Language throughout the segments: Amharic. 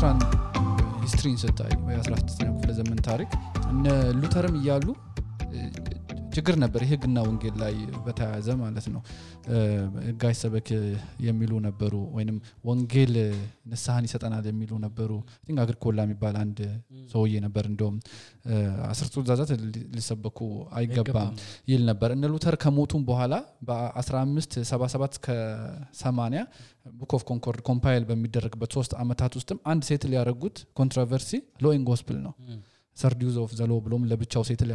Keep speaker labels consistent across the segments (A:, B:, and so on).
A: የሉትራን ሂስትሪን ስታይ በ16ኛው ክፍለ ዘመን ታሪክ እነ ሉተርም ይያሉ ችግር ነበር ይሄግና ወንጌል ላይ በተያያዘ ማለት ነው ጋይ ሰበክ የሚሉ ነበሩ ወይንም ወንጌል ንስሐን ይሰጠናል የሚሉ ነበሩ ቲንክ አግሪኮላ የሚባል አንድ ሰውዬ ነበር እንደውም 10 ትእዛዛት ሊሰበኩ አይገባም ይል ነበር እነ ሉተር ከሞቱም በኋላ በ1577 እስከ 80 ቡክ ኦፍ ኮንኮርድ ኮምፓይል በሚደረግበት 3 አመታት ውስጥም አንድ ሴትል ያረጉት ኮንትሮቨርሲ ሎ ኢን ጎስፔል ነው ሰርዲዩዝ ኦፍ ዘ ሎ ብሎም ለብቻው ሴትል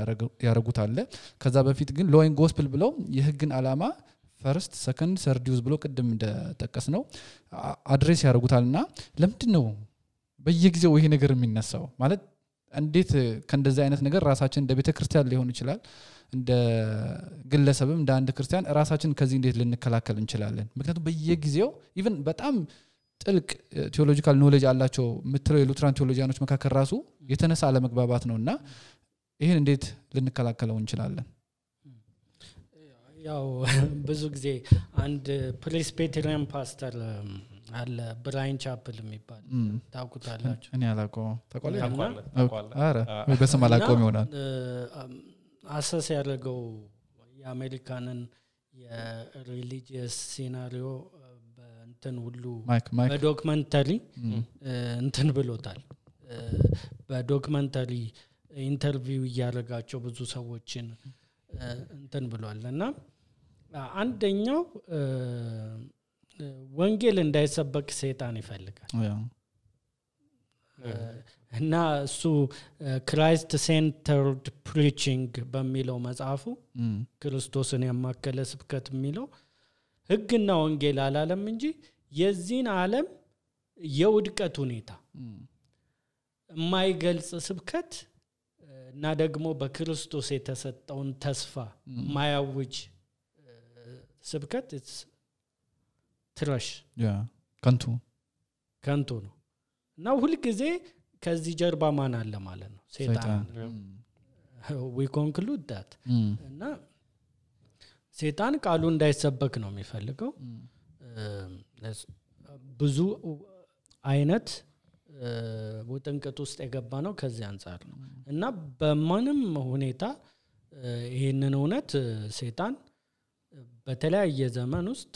A: ያረጉት አለ ከዛ በፊት ግን ሎ ኢን ጎስፔል ብለው የህግን አላማ ፈርስት ሰከንድ ሰርዲዩዝ ብሎ ቅድም እንደተጠቀስ ነው አድሬስ ያረጉታልና ለምንድነው በየጊዜው ይሄ ነገር የሚነሳው ማለት እንዴት ከእንደዚህ አይነት ነገር ራሳችን እንደ ቤተክርስቲያን ሊሆን ይችላል እንደ ግለሰብም እንደ አንድ ክርስቲያን ራሳችን ከዚህ እንዴት ልንከላከል እንችላለን ምክንያቱም በየጊዜው ኢቭን በጣም ጥልቅ ቴዎሎጂካል ኖሌጅ አላቸው ምትለው የሉትራን ቴዎሎጂያኖች መካከል ራሱ የተነሳ አለመግባባት ነውና ይሄን እንዴት ልንከላከለው እንችላለን
B: ያው ብዙ ጊዜ አንድ ፕሬስቢቴሪያን ፓስተር አለ ብራይን ቻፕል የሚባል ታውቁታላችሁ
A: እኔ አላውቀው ተቆለ አረ በስም አላውቀውም ይሆናል
B: አሰስ ያደረገው የአሜሪካንን የሪሊጂየስ ሲናሪዮ እንትን ሁሉ በዶክመንተሪ እንትን ብሎታል በዶክመንተሪ ኢንተርቪው ያደረጋቸው ብዙ ሰዎችን እንትን ብሏልና አንደኛው ወንጌል እንዳይሰበክ ሰይጣን ይፈልጋል እና እሱ ክራይስት ሴንተርድ ፕሪቺንግ በሚለው መጽሐፉ ክርስቶስን ያማከለ ስብከት የሚለው ህግና ወንጌል አላለም እንጂ የዚህን ዓለም የውድቀት ሁኔታ የማይገልጽ ስብከት እና ደግሞ በክርስቶስ የተሰጠውን ተስፋ ማያውጅ ስብከት ትራሽ ከንቱ ነው እና ሁሉ ጊዜ ከዚህ ጀርባ ማን አለ ማለት ነው ሰይጣን we conclude that እና ሰይጣን ቃሉ እንዳይሰበክ ነው የሚፈልገው ብዙ አይነት ወጥንቀት ውስጥ የገባ ነው ከዚህ አንፃር ነው እና በማንም ሁኔታ ይሄንን እውነት ሰይጣን በተለያየ ዘመን ውስጥ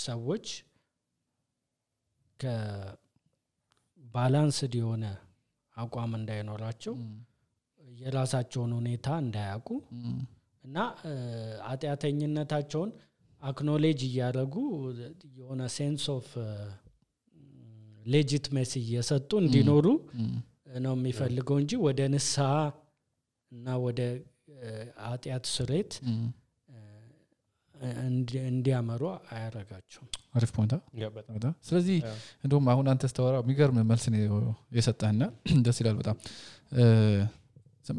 B: ሰዎች ከባላንስድ የሆነ አቋም እንዳይኖራቸው የራሳቸውን ሁኔታ እንዳያውቁ እና አጥያተኝነታቸውን አክኖሌጅ ያደረጉ የሆነ ሴንስ ኦፍ ሌጂቲሜሲ እየሰጡ እንዲኖሩ ነው የሚፈልገው እንጂ ወደ ንስሐ እና ወደ አጥያት ስሬት እንዲያመሩ አያረጋቸውም
A: አሪፍ ፖይንት በጣም ስለዚህ እንደውም አሁን አንተ ተስተዋራ የሚገርም መልስ ነው የሰጠህና ደስ ይላል በጣም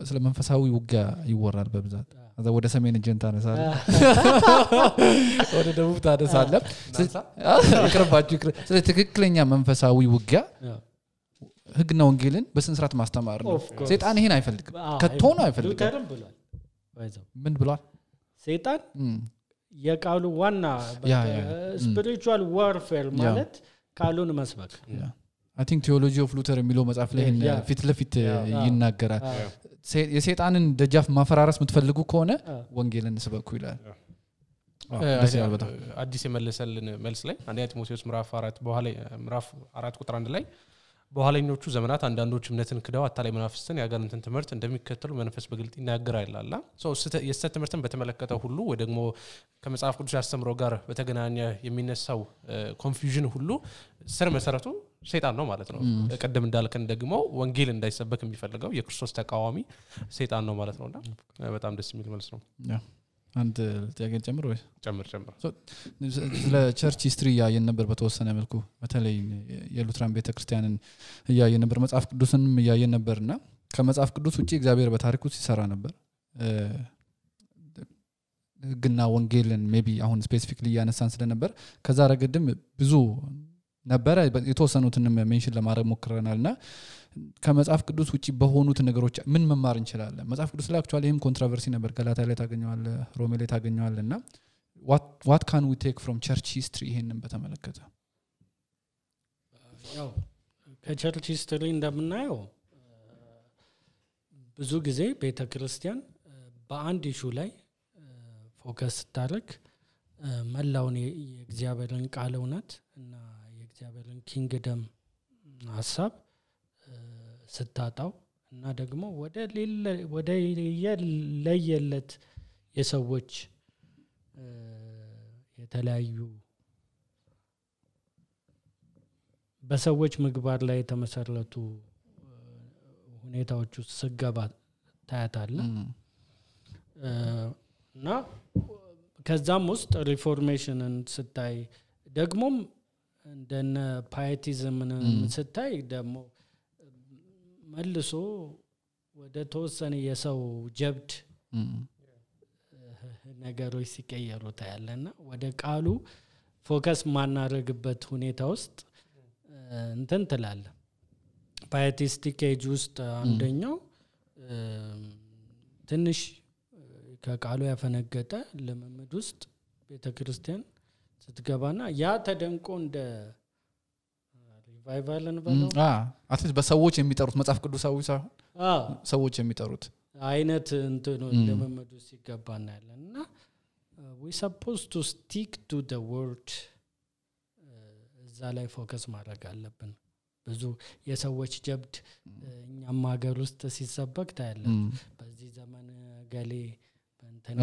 A: ስለ መንፈሳዊ ውጊያ ይወራል በብዛት አዛ ወደ ሰሜን ጀንታ ነሳለ ወደ ደቡብ ታደሳለ ይቅርባችሁ ስለ ትክክለኛ መንፈሳዊ ውጊያ ህግና ወንጌልን በስንስራት ማስተማር ነው ሰይጣን ይሄን አይፈልግም ከቶና አይፈልግም
B: ሉተርም ብሏል ወይዘው
A: ምን ብሏል
B: ሰይጣን የቃሉ ዋና ስፒሪቹዋል ዋርፌር ማለት ቃሉን መስበክ
A: I think theology of Luther የሚለው መጽሐፍ ላይ ፊት ለፊት ይናገራል የሰይጣንን ደጃፍ ማፈራረስ የምትፈልጉ ከሆነ ወንጌልን ስበኩ ይላል
C: አዲስ የመለሰልን መልስ ላይ አንደኛ ጢሞቴዎስ ምዕራፍ 4 በኋላ ምዕራፍ 4 ቁጥር 1 ላይ በኋለኞቹ ዘመናት አንዳንዶች እምነትን ክደው አታላይ መናፍስትን ያጋንንትን ትምህርት እንደሚከተሉ መንፈስ በግልጥ ይናገራል ይላል የስተት ትምህርትን በተመለከተ ሁሉ ወይ ደግሞ ከመጽሐፍ ቅዱስ ያስተምሮ ጋር በተገናኘ የሚነሳው ኮንፊውዥን ሁሉ ስር መሰረቱ ሰይጣን ነው ማለት ነው ቀደም እንዳልከን ደግሞ ወንጌል እንዳይሰበክ የሚፈልገው የክርስቶስ ተቃዋሚ ሰይጣን ነው ማለት ነውና በጣም ደስ የሚል መልስ ነው
A: አንድ ጥያቄ ጨምር ወይ
C: ጨምር
A: ስለ ቸርች ሂስትሪ ያየን ነበር በተወሰነ መልኩ በተለይ የሉትራን ቤተክርስቲያንን ያየን ነበር መጽሐፍ ቅዱስንም ያየን ነበርና ከመጽሐፍ ቅዱስ ውጪ እግዚአብሔር በታሪኩ ሲሰራ ነበር ግና ወንጌልን ሜቢ አሁን ስፔሲፊክሊ ያነሳን ስለነበር ከዛ ረገድም ብዙ ነበር የተወሰኑትን ሜንሽን ለማድረግ ሞክረናልና ከመጽሐፍ ቅዱስ ውጪ በሆኑት ነገሮች ምን መማር እንችላለን መጽሐፍ ቅዱስ ላይ አክቹአሊ ይሄም ኮንትሮቨርሲ ነበር ገላትያ ላይ ታገኘዋል ሮሜ ላይ ታገኘዋልና what can we take from church history ይሄንን በተመለከተ
B: ያው ከቸርች ሂስትሪ እንደምናየው ብዙ ጊዜ ቤተክርስቲያን በአንድ ኢሹ ላይ ፎከስ ስታደርግ መላውን የእግዚአብሔርን ቃል እውነት እና የእግዚአብሔርን ኪንግደም ሐሳብ ስታጣው እና ደግሞ ወደ ለየለት የሰዎች የተለያዩ በሰዎች ምግባር ላይ የተመሰረቱ ሁኔታዎች ውስጥ ስገባ ታያታለህ እና ከዛም ውስጥ ሪፎርሜሽንን ስታይ ደግሞም እንደነ ፓይቲዝምን ስታይ ደግሞ መልሶ ወደ ተወሰነ የሰው ጀብድ ነገሮች ሲቀየሩ ታያለና ወደ ቃሉ ፎከስ ማናረግበት ሁኔታ ውስጥ እንትን ትላለህ። ፓይቲስቲክ ኤጅ ውስጥ አንደኛው ትንሽ ከቃሉ ያፈነገጠ ለመምድ ውስጥ ቤተክርስቲያን ስትገባና ያ ተደንቆ እንደ ሪቫይቫልን በለው
A: አትሊስት በሰዎች የሚጠሩት መጽሐፍ ቅዱሳዊ ሳይሆን ሰዎች የሚጠሩት
B: አይነት እንትን ለመምድ ውስጥ ሲገባና ያለና we supposed to stick to the word እዛ ላይ ፎከስ ማድረግ አለብን። ብዙ የሰዎች ጀብድ እኛም ሀገር ውስጥ ሲሰበክ ታያለህ። በዚህ ዘመን ገሌ በእንተና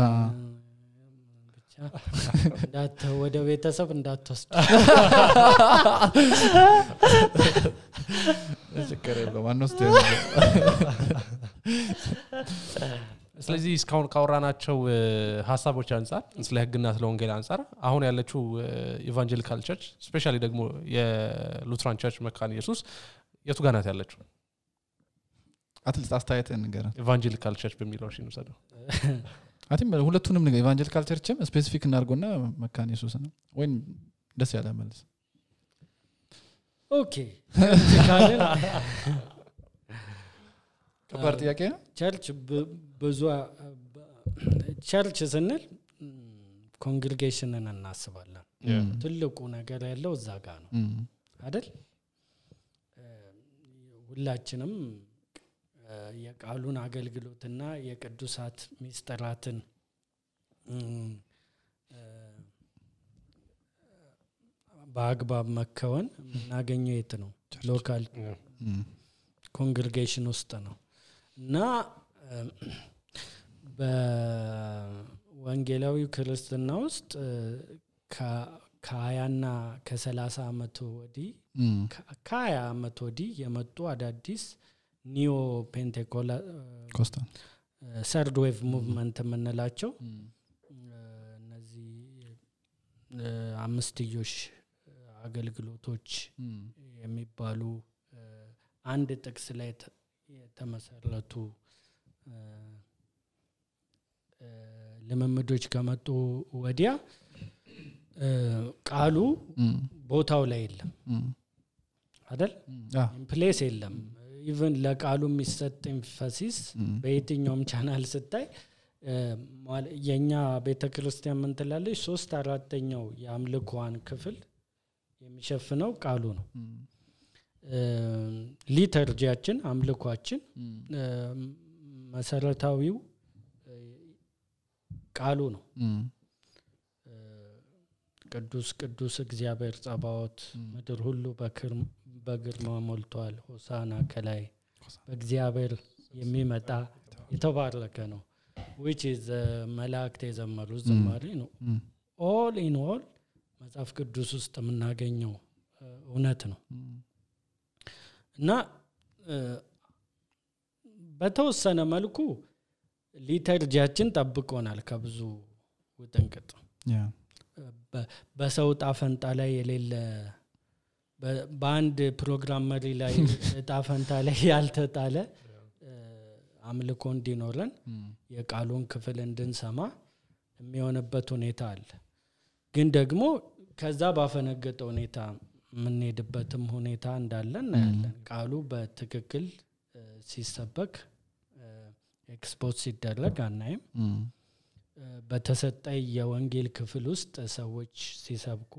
B: ብቻ ወደ ቤተሰብ እንዳትወስድ
A: ችግር የለውም አንወስድ።
C: ስለዚህ እስካሁን ካወራናቸው ሐሳቦች አንፃር ስለ ህግና ስለ ወንጌል አንፃር አሁን ያለችው ኢቫንጀሊካል ቸርች ስፔሻሊ ደግሞ የሉትራን ቸርች መካነ ኢየሱስ የቱ ጋር ናት ያለችው?
A: አትሊስት አስተያየትን ንገረን።
C: ኢቫንጀሊካል ቸርች በሚለው እሺ እንሰደው።
A: አትም ሁለቱንም ነገር ኢቫንጀሊካል ቸርችም ስፔሲፊክ እናርጎና መካነ ኢየሱስ ነው ወይ ደስ ያለ መልስ።
B: ኦኬ ካለን
A: ከባድ ጥያቄ ነው።
B: ቸርች ብዙ ቸርች ስንል ኮንግሪጌሽንን እናስባለን። ትልቁ ነገር ያለው እዛ ጋር ነው አይደል? ሁላችንም የቃሉን አገልግሎትና የቅዱሳት ሚስጥራትን በአግባብ መከወን የምናገኘው የት ነው? ሎካል ኮንግሪጌሽን ውስጥ ነው። እና በወንጌላዊ ክርስትና ውስጥ ከ20ና ከ30 አመት ወዲህ ከ20 አመት ወዲህ የመጡ አዳዲስ ኒዮ ፔንቴኮስታል ሰርድ ዌቭ ሙቭመንት የምንላቸው እነዚህ አምስትዮሽ አገልግሎቶች የሚባሉ አንድ ጥቅስ ላይ የተመሰረቱ ለመምዶች ከመጡ ወዲያ ቃሉ ቦታው ላይ የለም አይደል? ፕሌስ የለም። ኢቭን ለቃሉ የሚሰጥ ኤምፋሲስ በየትኛውም ቻናል ስታይ የኛ ቤተክርስቲያን ምን ትላለች? 3/4 የአምልኮዋን ክፍል የሚሸፍነው ቃሉ ነው። ሊተርጂያችን አምልኮአችን መሰረታዊው ቃሉ ነው። ቅዱስ ቅዱስ እግዚአብሔር ጸባዖት ምድር ሁሉ በግርማ ሞልቷል፣ ሆሳና ከላይ በእግዚአብሔር የሚመጣ የተባረከ ነው which is መላእክት የዘመሩት ዝማሬ ነው። all in all መጽሐፍ ቅዱስ ውስጥ የምናገኘው እውነት ነው እና በተወሰነ መልኩ ሊተርጂያችን ጠብቆናል ከብዙ ውጥንቅጥ። በሰው ጣፈንታ ላይ የሌለ በአንድ ፕሮግራም መሪ ላይ ጣፈንታ ላይ ያልተጣለ አምልኮ እንዲኖረን የቃሉን ክፍል እንድንሰማ የሚሆንበት ሁኔታ አለ። ግን ደግሞ ከዛ ባፈነገጠ ሁኔታ የምንሄድበትም ሁኔታ እንዳለ እናያለን። ቃሉ በትክክል ሲሰበክ ኤክስፖዝ ሲደረግ አናይም። በተሰጠ የወንጌል ክፍል ውስጥ ሰዎች ሲሰብኩ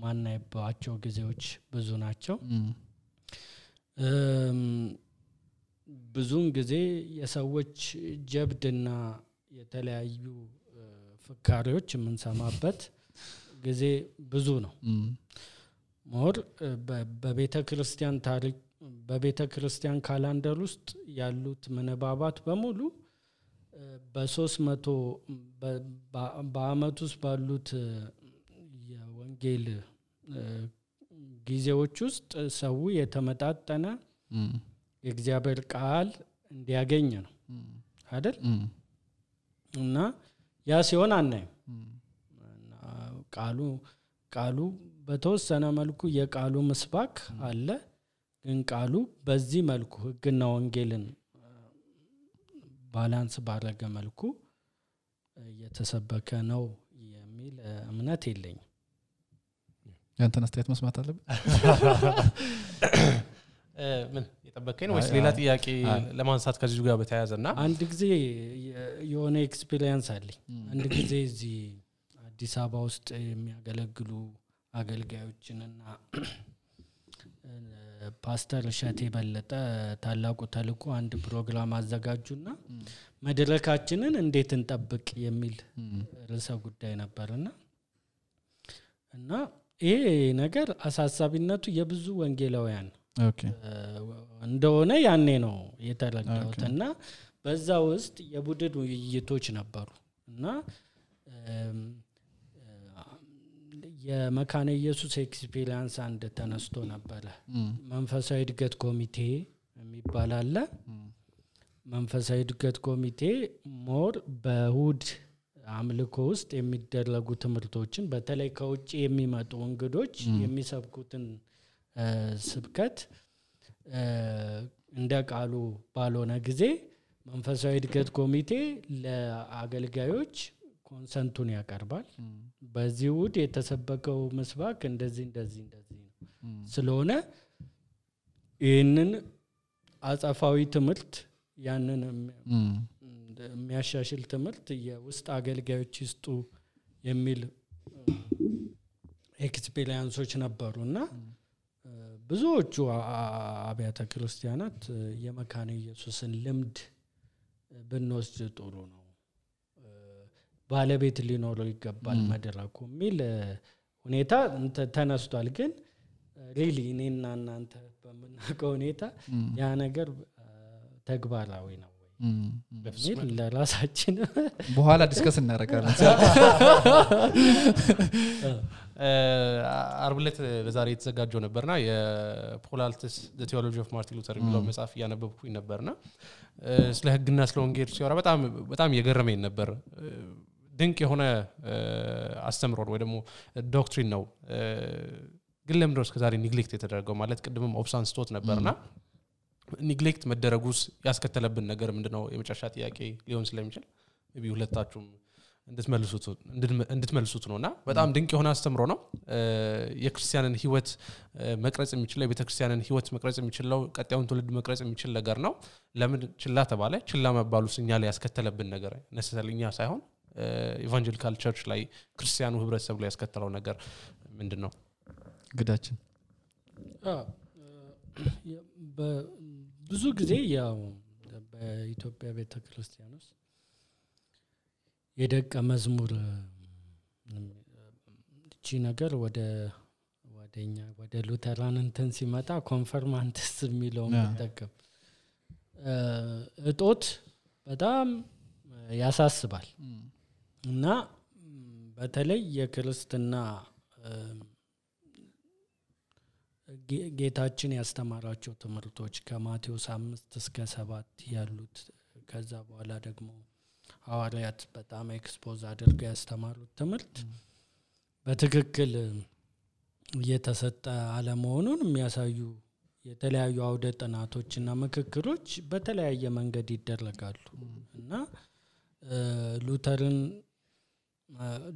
B: ማናይባቸው ጊዜዎች ብዙ ናቸው። ብዙውን ጊዜ የሰዎች ጀብድና የተለያዩ ፍካሪዎች የምንሰማበት ጊዜ ብዙ ነው። ሞር በቤተ ክርስቲያን ታሪክ በቤተ ክርስቲያን ካላንደር ውስጥ ያሉት ምንባባት በሙሉ በ300 በአመት ውስጥ ባሉት የወንጌል ጊዜዎች ውስጥ ሰው የተመጣጠነ የእግዚአብሔር ቃል እንዲያገኝ ነው አይደል? እና ያ ሲሆን አናይም። ቃሉ በተወሰነ መልኩ የቃሉ ምስባክ አለ፣ ግን ቃሉ በዚህ መልኩ ሕግና ወንጌልን ባላንስ ባደረገ መልኩ እየተሰበከ ነው የሚል እምነት የለኝም።
A: ያንተን አስተያየት መስማት አለብን።
C: ምን የጠበቀኝ ነው ወይስ ሌላ ጥያቄ ለማንሳት ከዚህ ጋር በተያያዘና?
B: አንድ ጊዜ የሆነ ኤክስፒሪየንስ አለኝ። አንድ ጊዜ እዚህ አዲስ አበባ ውስጥ የሚያገለግሉ አገልጋዮችንና ፓስተር ሸቴ በለጠ ታላቁ ተልእኮ አንድ ፕሮግራም አዘጋጁና መድረካችንን እንዴት እንጠብቅ የሚል ርዕሰ ጉዳይ ነበርና እና ይሄ ነገር አሳሳቢነቱ የብዙ ወንጌላውያን እንደሆነ ያኔ ነው የተረዳሁትና በዛ ውስጥ የቡድን ውይይቶች ነበሩ እና የመካነ ኢየሱስ ኤክስፒሪየንስ አንድ ተነስቶ ነበር። መንፈሳዊ እድገት ኮሚቴ የሚባል አለ። መንፈሳዊ እድገት ኮሚቴ ሞር በእሁድ አምልኮ ውስጥ የሚደረጉ ትምህርቶችን በተለይ ከውጭ የሚመጡ እንግዶች የሚሰብኩትን ስብከት እንደ ቃሉ ባልሆነ ጊዜ መንፈሳዊ እድገት ኮሚቴ ለአገልጋዮች ኮንሰንቱን ያቀርባል። በዚህ ውድ የተሰበከው መስባክ እንደዚህ ነው ስለሆነ ይህንን አጻፋዊ ትምህርት ያንን የሚያሻሽል ትምህርት የውስጥ አገልጋዮች ይስጡ የሚል ኤክስፒሪየንሶች ነበሩና ብዙዎቹ አብያተ ክርስቲያናት የመካነ ኢየሱስን ልምድ ብንወስድ ጥሩ ነው፣ ባለቤት ሊኖረው ይገባል መድረኩ የሚል ሁኔታ ተነስቷል። ግን ሪሊ እኔና እናንተ በመናቀው ሁኔታ ያ ነገር ተግባራዊ ነው ወይ ለራሳችን
A: በኋላ ዲስከስ እናደርጋለን።
C: አርብ ዕለት ለዛሬ የተዘጋጀው ነበርና የፖላልትስ ዘ ቲዮሎጂ ኦፍ ማርቲን ሉተር የሚለው መጽሐፍ ያነበብኩኝ ነበርና ስለ ሕግና ስለ ወንጌል ሲወራ በጣም የገረመኝ ነበር። ድንቅ የሆነ አስተምሮ ወይ ደግሞ ዶክትሪን ነው። ግን ለምን ነው እስከዛሬ ኒግሌክት የተደረገው? ማለት ቅድምም ኦፕሳን ስቶት ነበርና ኒግሌክት መደረጉስ ያስከተለብን ነገር ምንድነው? የመጨረሻ ጥያቄ ሊሆን ስለሚችል ቢ ሁለታችሁም እንድትመልሱት ነውና በጣም ድንቅ የሆነ አስተምሮ ነው። የክርስቲያንን ህይወት መቅረጽ የሚችለው የቤተክርስቲያንን ህይወት መቅረጽ የሚችለው ቀጣዩን ትውልድ መቅረጽ የሚችል ነገር ነው። ለምን ችላ ተባለ? ችላ መባሉስ እኛ ላይ ያስከተለብን ነገር ነሰሰልኛ ሳይሆን ኢቫንጀሊካል ቸርች ላይ ክርስቲያኑ ህብረተሰብ ላይ ያስከተለው ነገር ምንድነው?
A: ግዳችን
B: ብዙ ጊዜ ያው በኢትዮጵያ ቤተክርስቲያን ውስጥ የደቀ መዝሙር እቺ ነገር ወደኛ ወደ ሉተራን እንትን ሲመጣ ኮንፈርማንትስ የሚለው ተጠቀም እጦት በጣም ያሳስባል። እና በተለይ የክርስትና ጌታችን ያስተማራቸው ትምህርቶች ከማቴዎስ 5 እስከ 7 ያሉት ከዛ በኋላ ደግሞ ሐዋርያት በጣም ኤክስፖዝ አድርገው ያስተማሩት ትምህርት በትክክል እየተሰጠ አለመሆኑን የሚያሳዩ የተለያዩ አውደ ጥናቶችና ምክክሮች በተለያየ መንገድ ይደረጋሉ። እና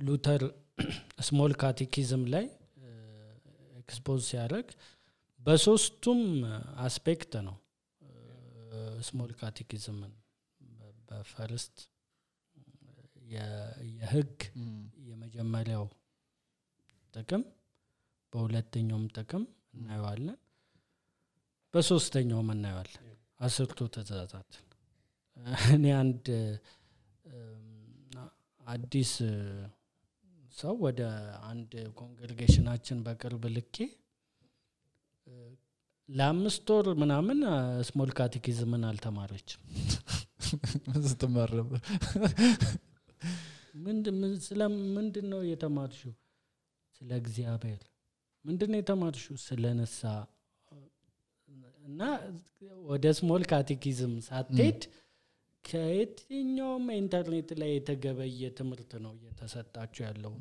B: ሉተር ስሞል ካቴኪዝም ላይ ኤክስፖዝ ሲያደርግ በሶስቱም አስፔክት ነው ስሞል ካቴኪዝምን በፈርስት የህግ የመጀመሪያው ጥቅም በሁለተኛውም ጥቅም እናየዋለን። በሶስተኛው እናየዋለን 10ቱ ትእዛዛት እኔ አንድ አዲስ ሰው ወደ አንድ ኮንግሪጌሽናችን በቅርብ ልኬ ለ5 ወር ምናምን ስሞል ካቴኪዝምን አልተማረችም
A: ምንስተማረበ
B: ምንድነው የተማርሽው ስለ እግዚአብሔር ምንድነው የተማርሽው ስለ ነሳ እና ወደ ስሞል ካቴኪዝም ሳትሄድ ከየትኛውም ኢንተርኔት ላይ የተገበየ ትምህርት ነው እየተሰጣችሁ ያለው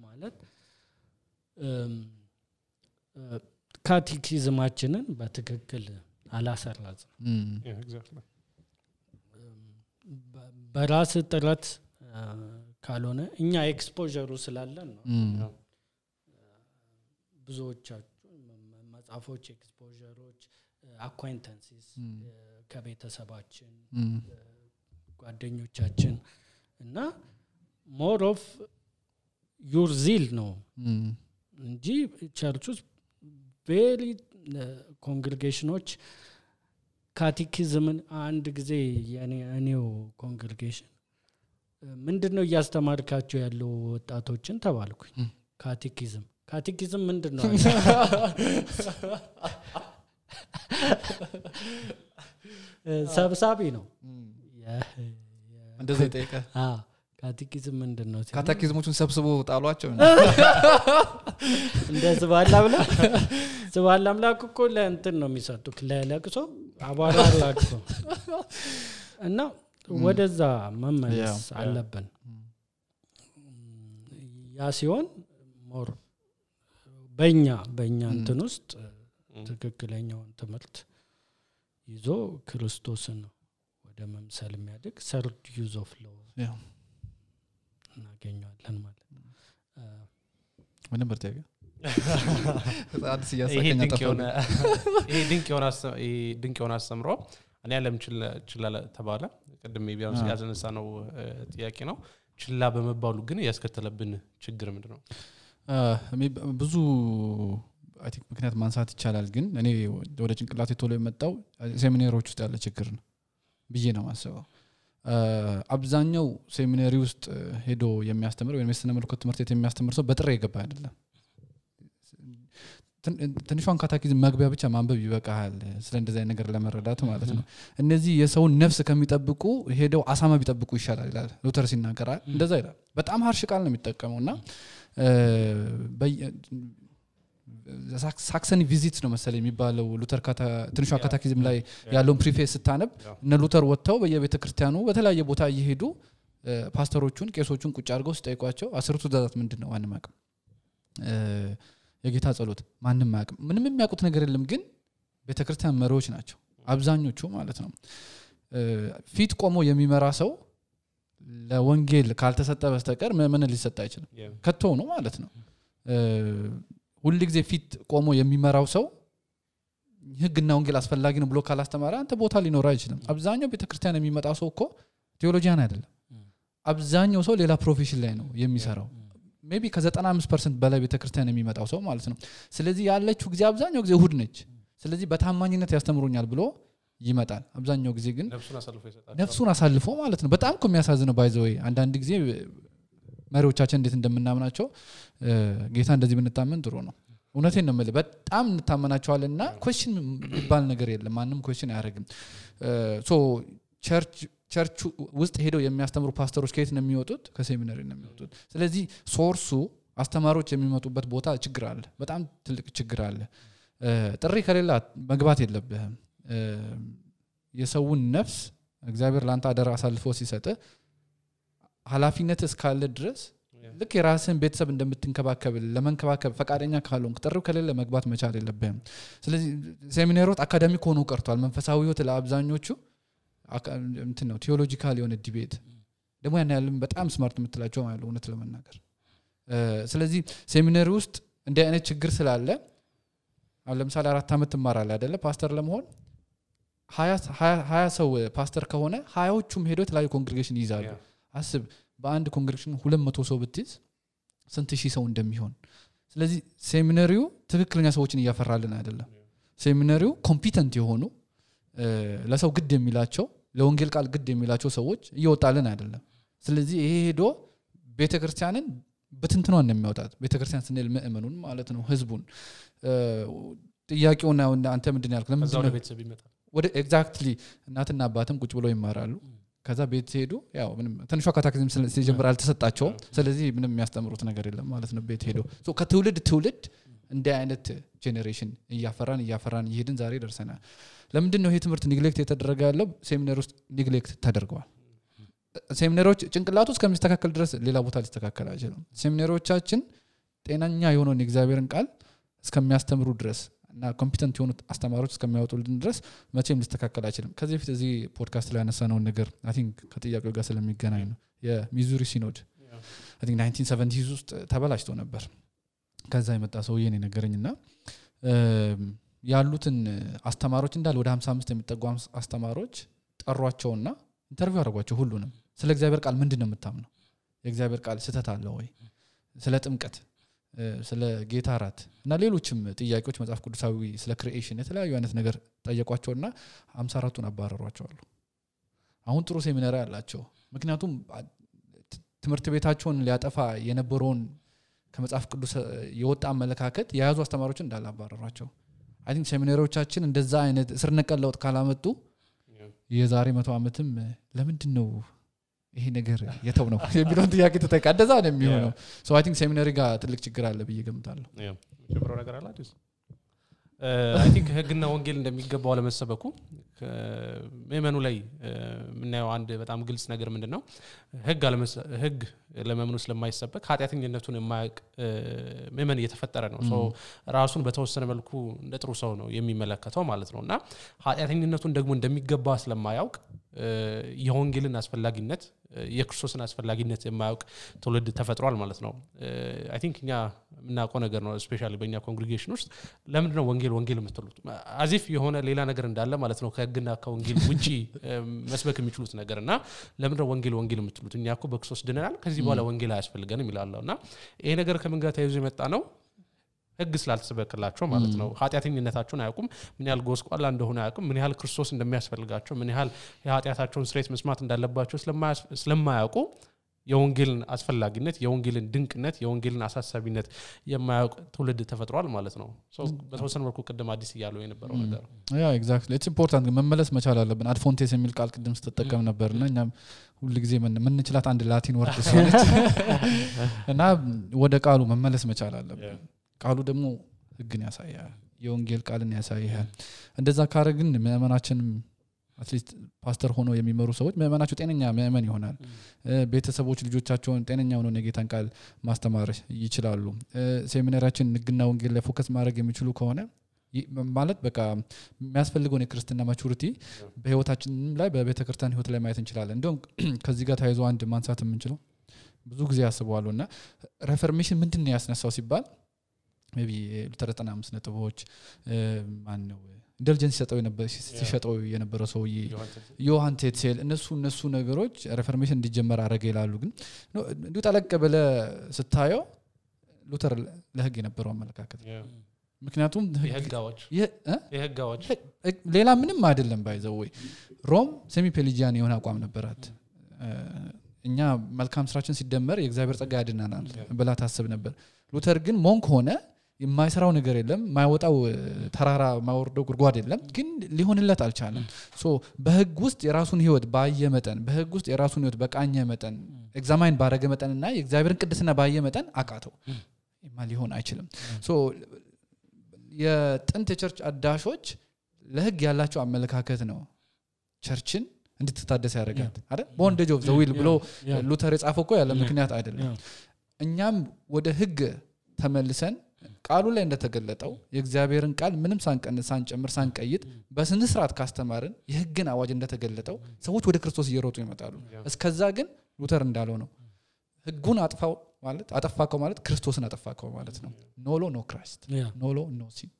B: ማለት ካቴኪዝማችንን በትክክል አላሰራጽም በራስ ጥረት ካልሆነ እኛ ኤክስፖዠሩ ስላለን ነው ብዙዎቻችሁ መጻፎች ኤክስፖዠሮች አኳይንታንሲስ ከቤተሰባችን ጓደኞቻችን እና ሞር ኦፍ ዩር ዚል ነው እንጂ ቸርቹስ ቬሪ ኮንግሪጌሽኖች ካቴኪዝምን አንድ ጊዜ የኔው ኮንግሪጌሽን ምንድነው ያስተማርካቸው ያለው ወጣቶችን ተባልኩኝ ካቴኪዝም ምንድነው ሰብሳቢ ነው
A: እንደዚህ ጠይቀ
B: ካቴኪዝም ምንድነው
A: ካቴኪዝሞቹን ሰብስቦ ጣሏቸው
B: እንደዚህ ባላ አምላክ እኮ ለእንትን ነው የሚሰጡክ ለለቅሶ አባራ ለቅሶ እና ወደዛ መመለስ አለብን ያ ሲሆን ሞር በእኛ እንትን ውስጥ ትክክለኛውን ትምህርት ይዞ ክርስቶስን ወደ መምሰል የሚያድግ ሰርድ ዩዝ ኦፍ ሎው እናገኛለን ማለት ነው
A: ምንም በርታጋ አዲስ
C: ያሳከኛ ተፈለ ይሄ ድንቅ የሆነ አስተምሮ እኔ ዓለም ችላ ተባለ ቀድሜ ቢያንስ ያዘነሳ ነው ጥያቄ ነው ችላ በመባሉ ግን ያስከተለብን ችግር ምንድነው
A: ብዙ አይ ቲንክ ምክንያት ማንሳት ይቻላል ግን እኔ ወደ ጭንቅላቴ ቶሎ የመጣው ሴሚናሪዎች ውስጥ ያለ ችግር ነው ብዬ ነው ማሰበው አብዛኛው ሴሚናሪ ውስጥ ሄዶ የሚያስተምር ወይ የስነ መለኮት ትምህርት የሚያስተምር ሰው በጥሬ ይገባ አይደለም ትንሿን ካቴኪዝም መግቢያ ብቻ ማንበብ ይበቃል ስለ እንደዚህ አይነት ነገር ለመረዳት ማለት ነው እነዚህ የሰውን ነፍስ ከሚጠብቁ ሄደው አሳማ ቢጠብቁ ይሻላል ይላል ሉተር ሲናገር እንደዛ ይላል በጣም harsh ቃል ነው የሚጠቀመውና ሳክሰኒ ቪዚት ነው መሰለኝ የሚባለው ሉተር ትንሿ ካቴኪዝም ላይ ያለውን ፕሪፌስ ስታነብ እነ ሉተር ወጥተው በየቤተክርስቲያኑ በተለያየ ቦታ እየሄዱ ፓስተሮቹን ቄሶቹን ቁጭ አድርገው ሲጠይቋቸው 10ቱ ትእዛዛት ምንድነው ማንም አያውቅም የጌታ ጸሎት ማንም አያውቅም ምንም የሚያውቁት ነገር የለም ግን ቤተክርስቲያን መሪዎች ናቸው አብዛኞቹ ማለት ነው ፊት ቆሞ የሚመራ ሰው ለወንጌል ካልተሰጠ በስተቀር ምን ሊሰጥ አይችልም ከቶ ነው ማለት ነው ሁሉ ጊዜ ፊት ቆሞ የሚመራው ሰው ህግና ወንጌል አስፈላጊ ነው ብሎ ካላስተማረ አንተ ቦታ ሊኖር አይችልም አብዛኛው ቤተክርስቲያን የሚመጣው ሰው እኮ ቴዎሎጂያን አይደለም አብዛኛው ሰው ሌላ ፕሮፌሽን ላይ ነው የሚሰራው ሜቢ ከ95% በላይ ቤተክርስቲያን የሚመጣው ሰው ማለት ነው ስለዚህ ያለችው ጊዜ አብዛኛው ጊዜ እሁድ ነች ስለዚህ በታማኝነት ያስተምሩኛል ብሎ ይመጣል አብዛኛው ጊዜ ግን ነፍሱን አሳልፎ ማለት ነው በጣም የሚያሳዝነው ባይ ዘ ወይ አንዳንድ ጊዜ መሪዎቻችን እንዴት እንደምናምናቸው ጌታ እንደዚህ ብንታመን ጥሩ ነው እውነቴን ነው ማለት በጣም እንታመናቸዋልና ኩዌስችን ይባል ነገር የለም ማንንም ኩዌስችን አያረግም ሶ ቸርች ውስጥ ሄደው የሚያስተምሩ ፓስተሮች ከየት ነው የሚወጡት ከሴሚናሪ ነው የሚወጡት ስለዚህ ሶርሱ አስተማሪዎች የሚመጡበት ቦታ ችግር አለ በጣም ትልቅ ችግር አለ ጥሪ ከሌላ መግባት የለብህም የሰውን ነፍስ እግዚአብሔር ላንተ አደራ አሳልፎ ሲሰጥ ኃላፊነት እስካለ ድረስ ልክ የራስን ቤተሰብ እንደምትንከባከብ ለመንከባከብ ፈቃደኛ ካልሆንክ ጥሪው ከሌለ መግባት መቻል የለብህም ስለዚህ ሴሚናሪዎች አካዳሚክ ሆኖ ቀርቷል መንፈሳዊ ህይወት ለአብዛኞቹ እንትን ነው ቲዮሎጂካል የሆነ ዲቤት ደግሞ ያን ያለም በጣም ስማርት የምትላቸው ማለት ነው እውነት ለመናገር ስለዚህ ሴሚናሪ ውስጥ እንደ አይነት ችግር ስላለ አሁን ለምሳሌ 4 አመት ተማራለ አይደለ ፓስተር ለመሆን 20 ሰው ፓስተር ከሆነ 20ዎቹም ሄዶ የተለያዩ ኮንግሪጌሽን ይዛሉ አስብ በአንድ ኮንግሪጌሽን 200 ሰው ብትይዝ ስንት ሺህ ሰው እንደሚሆን ስለዚህ ሴሚናሪው ትክክለኛ ሰዎችን ያፈራልን አይደለም ሴሚናሪው ኮምፒተንት የሆኑ ለሰው ግድ የሚላቸው ለወንጌል ቃል ግድ የሚላቸው ሰዎች እየወጣልን አይደለም ስለዚህ ይሄ ሄዶ ቤተክርስቲያንን በትንትኗን ነው የሚያወጣት ቤተክርስቲያን ስንል ምእመኑን ማለት ነው ህዝቡን ጥያቄውና አንተ ምንድን ያልከው ለምን
C: ነው ቤተሰብ ይመጣል
A: ወደ ኤግዛክትሊ እናትና አባትም ቁጭ ብለው ይማራሉ ከዛ ቤት ሄዱ ያው ምንም ትንሿ ካታክሲዝም ሲጀምር አልተሰጣቸው ስለዚህ ምንም የሚያስተምሩት ነገር የለም ማለት ነው ቤት ሄዶ ሶ ከትውልድ ትውልድ እንደ አይነት ጄኔሬሽን እያፈራን ይሄድን ዛሬ ደርሰናል ለምንድን ነው ይሄ ትምህርት ኔግሌክት የተደረገ ያለው ሴሚናሪ ውስጥ ኔግሌክት ተደርገዋል ሴሚናሪዎች ጭንቅላቱ እስከሚስተካከል ድረስ ሌላ ቦታ ሊስተካከል አይችልም ሴሚናሪዎቻችን ጤናኛ የሆነውን የእግዚአብሔርን ቃል እስከሚያስተምሩ ድረስ እና ኮምፒተንት የሆኑ አስተማሪዎች እስከሚያወጡልን ድረስ መቼም ሊስተካከል አይችልም ከዚህ በፊት እዚህ ፖድካስት ላይ ያነሳነው ነገር አይ ቲንክ ከጥያቄው ጋር ስለሚገናኝ ነው የሚዙሪ ሲኖድ አይ ቲንክ 1970s ውስጥ ተበላሽቶ ነበር ከዛ የመጣ ሰውዬ ነው ነገረኝና ያሉትን አስተማሪዎች እንዳለ ወደ 55 የሚጠጉ አስተማሪዎች ጠሯቸውና ኢንተርቪው አደረጓቸው ሁሉንም ስለ እግዚአብሔር ቃል ምንድነው የምታምነው የእግዚአብሔር ቃል ስህተት አለው ወይ ስለ ጥምቀት ስለ ጌታ ራት እና ሌሎችም ጥያቄዎች መጽሐፍ ቅዱሳዊ ስለ ክሪኤሽን የተለያዩ አይነት ነገር ጠየቋቸውና 54ቱን አባረሯቸው አሁን ጥሩ ሴሚናሪ አላቸው ምክንያቱም ትምህርት ቤታቸውን ሊያጠፋ የነበረውን ከመጽሐፍ ቅዱስ የወጣ አመለካከት የያዙ አስተማሪዎች እንዳላባረሯቸው አይ ቲንክ ሴሚናሪዎቻችን እንደዛ አይነት ስር ነቀል ለውጥ ካላመጡ የዛሬ 100 ዓመትም ለምንድን ነው ይሄ ነገር የተው ነው የሚለውን ጥያቄ ተጠቃ እንደዛ ነው የሚሆነው ሶ አይ ቲንክ ሴሚናሪ ጋር ትልቅ ችግር አለ ብዬ ገምታለሁ
C: ጀብሮ ነገር አላችሁ አይ ቲንክ ህግና ወንጌል እንደሚገባው ለመሰበኩ መመኑ ላይ ምናየው አንድ በጣም ግልጽ ነገር ምንድነው ህግ ለመመኑ ስለማይሰበክ ኃጢአተኝነቱን የማያውቅ መመን እየተፈጠረ ነው ሶ ራሱን በተወሰነ መልኩ እንደ ጥሩ ሰው ነው የሚመለከተው ማለት ነውና ኃጢአተኝነቱን ደግሞ እንደሚገባ ስለማያውቅ የወንጌልን አስፈላጊነት የክርስቶስን አስፈላጊነት የማያውቅ ትውልድ ተፈጥሯል ማለት ነው አይ ቲንክ እኛ ምናቆ ነገር ነው ስፔሻሊ በእኛ ኮንግሪጌሽን ውስጥ ለምንድነው ወንጌል የምትሉት አዚፍ የሆነ ሌላ ነገር እንዳለ ማለት ነው ከህግና ከወንጌል ውጪ መስበክ የሚችሉት ነገርና ለምንድነው ወንጌል የምትሉት እኛኮ በክርስቶስ ድነናል ከዚህ በኋላ ወንጌል አያስፈልገንም ይላልውና ይሄ ነገር ከምን ጋር ተያይዞ የመጣ ነው ህግ ስላልተሰበከላቸው ማለት ነው ኃጢአተኝነታቸውን አያውቁም ምን ያህል ጎስቋላ እንደሆነ አያውቁም ምን ያህል ክርስቶስ እንደሚያስፈልጋቸው ምን ያህል የኃጢአታቸውን ስርየት መስማት እንዳለባቸው ስለማያውቁ የወንጌልን አስፈላጊነት የወንጌልን ድንቅነት የወንጌልን አሳሳቢነት የማያውቅ ትውልድ ተፈጥሯል ማለት ነው ሶ በተወሰነ መልኩ ቀደም አዲስ ያለው የነበረው ነገር
A: ያ ኤግዛክትሊ ኢትስ ኢምፖርታንት መመለስ መቻል አለብን አድፎንቴስ የሚል ቃል ቅድም ተጠቀም ነበርና እኛም ሁሉ ጊዜ ምን እንችላት አንድ ላቲን ወርድ ስለሆነች እና ወደ ቃሉ መመለስ መቻል አለብን ቃሉ ደግሞ ህግን ያሳያል የወንጌል ቃልን ያሳያል እንደዛ ካረግን ምእመናችንም አትሊስት ፓስተር ሆኖ የሚመሩ ሰዎች ምእመናቸው ጤነኛ ምእመን ይሆናል ቤተሰቦች ልጆቻቸውን ጤነኛ ሆነው የጌታን ቃል ማስተማር ይችላሉ ሴሚናሪያችን ህግና ወንጌል ላይ ፎከስ ማድረግ የሚችሉ ከሆነ ማለት በቃ የሚያስፈልገው የክርስትና ማቹሪቲ በህይወታችን ላይ በቤተክርስቲያን ህይወት ላይ ማየት እንችላለን እንደውም ከዚህ ጋር ታይዞ አንድ ማንሳት የምንችለው ብዙ ጊዜ ያስባሉና ሪፎርሜሽን ምንድነው ያስነሳው ሲባል ሜቢ ሉተር 95 ነጥቦች ማን ነው ኢንተሊጀንስ ሲሸጠው የነበረ ሰውዬ ዮሐን ቴትሴል እነሱ ነገሮች ሪፎርሜሽን እንዲጀመር አረገ ይላሉ ግን እንዴ ተለቀ በለ ስታየው ሉተር ለህግ የነበረው አመለካከት ምክንያቱም የህጋዎች ሌላ ምንም አይደለም ባይዘው ወይ ሮም ሴሚ ፔሊጂያን የሆነ አቋም ነበራት እኛ መልካም ስራችን ሲደመር የእግዚአብሔር ጸጋ ያድናናል ብላ ታስብ ነበር ሉተር ግን ሞንክ ሆነ የማይሰራው ነገር የለም ማይወጣው ተራራ ማወርደው ጉድጓድ የለም ግን ሊሆንለት አልቻለም ሶ በህግ ውስጥ የራሱን ህይወት ባየ መጠን በህግ ውስጥ የራሱን ህይወት በቃኘ መጠን ኤግዛማይን ባረገ መጠንና የእግዚአብሔርን ቅድስና ባየ መጠን አቃተው ሊሆን አይችልም ሶ የጥንት ቸርች አዳሾች ለህግ ያላቸው አመለካከት ነው ቸርችን እንድትታደስ ያደርጋል አይደል ቦንዴጅ ኦፍ ዘ ዊል ብሎ ሉተር የጻፈው እኮ ያለ ምክንያት አይደለም እኛም ወደ ህግ ተመልሰን ቃሉ ላይ እንደተገለጠው የእግዚአብሔርን ቃል ምንም ሳንቀንስ ሳንጨምር ሳንቀይጥ በስነ ስርዓት ካስተማርን የህግን አዋጅ እንደተገለጠው ሰዎች ወደ ክርስቶስ እየሮጡ ይመጣሉ እስከዛ ግን ሉተር እንዳለው ነው ህጉን አጠፋከው ማለት ክርስቶስን አጠፋከው ማለት ነው ኖሎ ኖ ክራይስት ኖሎ ኖ ሲን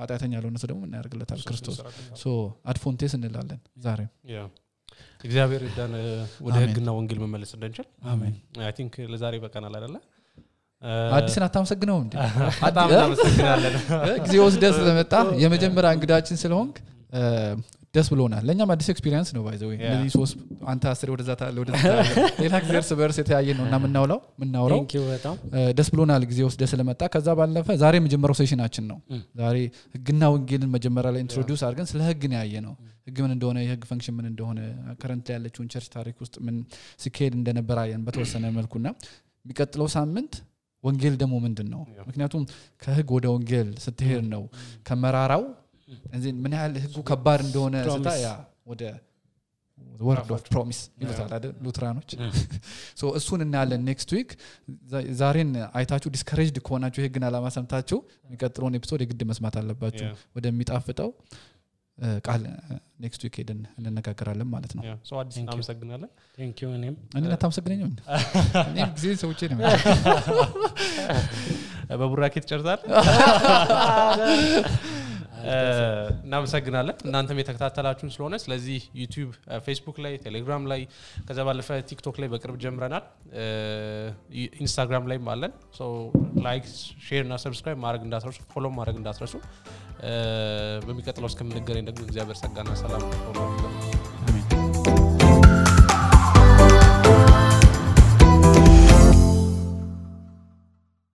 A: ኃጢአተኛ ያለውነሱ ደግሞ እናያርግለታል ክርስቶስ ሶ አድፎንቴስ እንላለን ዛሬ
C: እግዚአብሔር ይዳን ወደ ህግና ወንጌል መመለስ እንደንችል አሜን አይ ቲንክ ለዛሬ በቀናል አይደለ
A: አዲስን አታመሰግነው እንዴ
C: በጣም እናመሰግናለን
A: ጊዜ ወስደህ ስለመጣ የመጀመሪያ እንግዳችን ስለሆንክ ደስ ብሎናል ለኛም አዲስ ኤክስፒሪየንስ ነው ባይዘው ለዚህ ሶስት አንተ 10 ወደዛ ታለ ወደዛ ሌላ ጊዜ በርስ የተያየ ነውና ምናውራው
B: Thank you በጣም
A: ደስ ብሎናል ጊዜ ወስደህ ስለመጣ ከዛ ባለፈ ዛሬ መጀመሪያው ሴሽናችን ነው ዛሬ ህግና ወንጌልን መጀመሪያ ላይ ኢንትሮዲዩስ አድርገን ስለ ህግ ነው ያየ ነው ህግ ምን እንደሆነ የህግ ፈንክሽን ምን እንደሆነ ከረንት ላይ ያለችውን ቸርች ታሪክ ውስጥ ምን ሲኬድ እንደነበረ አየን በተወሰነ መልኩና የሚቀጥለው ሳምንት ወንጌል ደግሞ ምንድነው ምክንያቱም ከህግ ወደ ወንጌል ስትሄድ ነው ከመራራው እንዴ ምን ያህል ህጉ ከባድ እንደሆነ ስታያ ወደ word of promise ይሉታል አይደል ሉትራኖች ሶ እሱን እናያለን ኔክስት ዊክ ዛሬን አይታችሁ ዲስከሬጅድ ከሆናችሁ ህግና አላማ ሰምታችሁ የሚቀጥለውን ኤፒሶድ የግድ መስማት አለባችሁ ወደሚጣፍጠው ቃል ኔክስት ዊክ ሄደን እንነጋገራለን ማለት ነው
C: ሶ አዲስ እናመሰግናለን
B: Thank you እኔም
A: ታመሰግነኝ እኔም ጊዜ ሰውቼ ነው
C: በቡራኬት ጨርሳል እናመሰግናለን እናንተም የተከታተላችሁን ስለሆነ ስለዚህ ዩቲዩብ ፌስቡክ ላይ ቴሌግራም ላይ ከዛ ባለፈ ቲክቶክ ላይ በቅርብ ጀምረናል ኢንስታግራም ላይ አለን ሶ ላይክ ሼር እና ሰብስክራይብ ማድረግ እንዳትረሱ ፎሎ ማድረግ እንዳትረሱ በሚቀጥለው እስከምንገናኝ ደግሞ እግዚአብሔር ጸጋና ሰላም ሆኖ